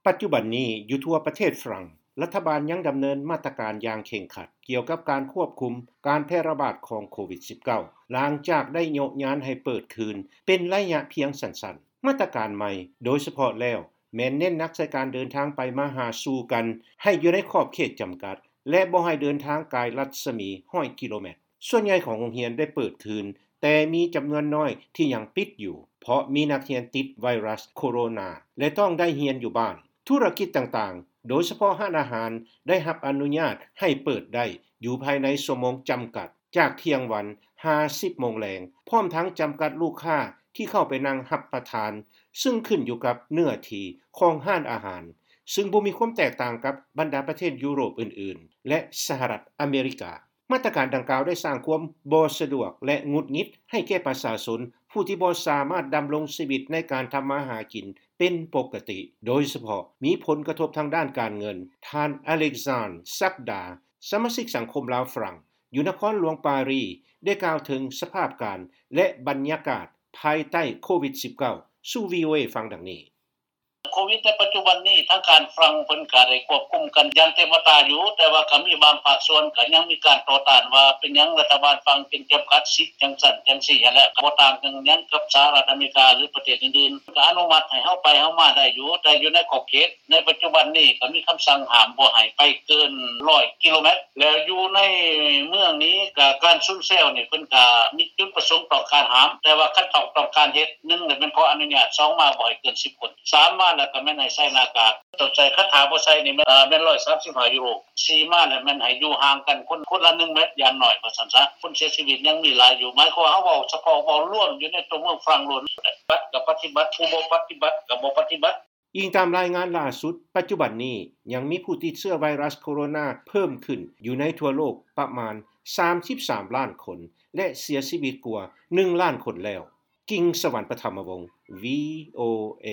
ປັດຈຸບັນນີ້ ຢູ່ທົ່ວປະເທດຝຣັ່ງ ລັດຖະບານຍັງດຳເນີນມາດຕະການຢ່າງເຄັ່ງຄັດ ກ່ຽວກັບການຄວບຄຸມການແຜ່ລະບາດຂອງໂຄວິດ-19 ຫຼັງຈາກໄດ້ໂຍະຍານໃຫ້ເປີດຄືນເປັນໄລຍະພຽງສັ້ນໆ. ມາດຕະການໃໝ່ໂດຍສະເພາະແລ້ວ ແມ່ນເນັ້ນໜັກໃສ່ການເດີນທາງໄປມາຫາສູ່ກັນ ໃຫ້ຢູ່ໃນຂອບເຂດຈຳກັດ ແລະ ບໍ່ໃຫ້ເດີນທາງກາຍລັດສະໝີຮ້ອຍກິໂລແມັດ. ສ່ວນໃຫຍ່ຂອງໂຮງຮຽນໄດ້ເປີດຄືນ, ແຕ່ມີຈຳນວນນ້ອຍທີ່ຍັງປິດຢູ່ ເພາະມີນັກຮຽນຕິດໄວຣັສໂຄໂຣນາ ແລະ ຕ້ອງໄດ້ຮຽນຢູ່ບ້ານ. ທຸລະກິດຕ່າງໆ ໂດຍສະເພາະຮ້ານອາຫານ ໄດ້ຮັບອະນຸຍາດໃຫ້ເປີດໄດ້ຢູ່ພາຍໃນຊົ່ວໂມງຈຳກັດ ຈາກທ່ຽງວັນຫາສິບໂມງແລງ, ພ້ອມທັງຈຳກັດລູກຄ້າທີ່ເຂົ້າໄປນັ່ງຮັບປະທານ, ຊຶ່ງຂຶ້ນຢູ່ກັບເນື້ອທີ່ຂອງຮ້ານອາຫານ, ຊຶ່ງບໍ່ມີຄວາມແຕກຕ່າງກັບບັນດາປະເທດຢູໂຣບອື່ນໆ ແລະ ສະຫະລັດອາເມລິກາ. ມາດຕະການດັ່ງກ່າວໄດ້ສ້າງຄວາມບໍ່ສະດວກ ແລະ ຫງຸດຫງິດໃຫ້ແກ່ປະຊາຊົນ ຜູ້ທີ່ບໍ່ສາມາດດຳລົງຊີວິດໃນການທຳມາຫາກິນເປັນປົກກະຕິ, ໂດຍສະເພາະມີຜົນກະທົບທາງດ້ານການເງິນ. ທ່ານ ອາເລັກຊານ ສັກດາ ສະມາຊິກສັງຄົມລາວຝຣັ່ງ ຢູ່ນະຄອນຫຼວງປາຣີ ໄດ້ກ່າວເຖິງສະພາບການ ແລະ ບັນຍາກາດພາຍໃຕ້ໂຄວິດ-19 ສູ່ ວີໂອເອ ຟັງດັ່ງນີ້. ໂຄວິດໃນປັດຈຸບັນນີ້ ທາງການຝຣັ່ງເພິ່ນກະໄດ້ຄວບຄຸມກັນຢ່າງເຕັມອັດຕາຢູ່, ແຕ່ວ່າກະມີບາງພາກສ່ວນກະຍັງມີການຕໍ່ຕ້ານວ່າ ເປັນຫຍັງລັດຖະບານຝຣັ່ງຈຶ່ງຈຳກັດສິດຈັ່ງຊັ້ນຈັ່ງຊີ້ຫັ້ນແຫຼະ, ກະບໍ່ຕ່າງກັນຫຍັງກັບສະຫະລັດອາເມລິກາ ຫຼື ປະເທດອື່ນໆ, ກະອະນຸມັດໃຫ້ເຮົາໄປເຮົາມາໄດ້ຢູ່, ແຕ່ຢູ່ໃນຂອບເຂດ. ໃນປັດຈຸບັນນີ້ກະມີຄຳສັ່ງຫ້າມບໍ່ໃຫ້ໄປເກີນຮ້ອຍກິໂລແມັດ ແລ້ວຢູ່ໃນເມືອງນີ້ກະການຊຸນແຊວນີ້ເພິ່ນກະມີຈຸດປະສົງຕ້ອງການຫ້າມ, ແຕ່ວ່າຄັນຕ້ອງ ຕ້ອງການເຮັດ ໜຶ່ງແມ່ນຂໍອະນຸຍາດ, ສອງມາບໍ່ໃຫ້ເກີນສິບຄົນ, ສາມມາແລ້ວກະແມ່ນໃຫ້ໃສ່ໜ້າກາກ, ຕ້ອງໃສ່ຄັນຖ້າບໍ່ໃສ່ນີ້ແມ່ນ ເອີ ແມ່ນຮ້ອຍສາມສິບຫ້າຢູໂຣ, ສີ່ມາແລ້ວແມ່ນໃຫ້ຢູ່ຫ່າງກັນຄົນ ຄົນລະໜຶ່ງແມັດຢ່າງໜ້ອຍວ່າຊັ້ນຊະ. ຄົນເສຍຊີວິດຍັງມີຫຼາຍຢູ່, ໝາຍຄວາມວ່າເຮົາເວົ້າສະເພາະເວົ້າລວມຢູ່ໃນຕົວເມືອງຝຣັ່ງໂລດ, ປະຕິບັດກະປະຕິບັດ, ຜູ້ບໍ່ປະຕິບັດກະບໍ່ປະຕິບັດ. ອີງຕາມລາຍງານລ່າສຸດ, ປັດຈຸບັນນີ້ຍັງມີຜູ້ຕິດເຊື້ອໄວຣັສໂຄໂຣນາເພີ່ມຂຶ້ນຢູ່ໃນທົ່ວໂລກປະມານສາມສິບສາມລ້ານຄົນ ແລະ ເສຍຊີວິດກວ່າໜຶ່ງລ້ານຄົນແລ້ວ. ກິງ ສະຫວັນ ປະທຳມະວົງ ວີໂອເອ.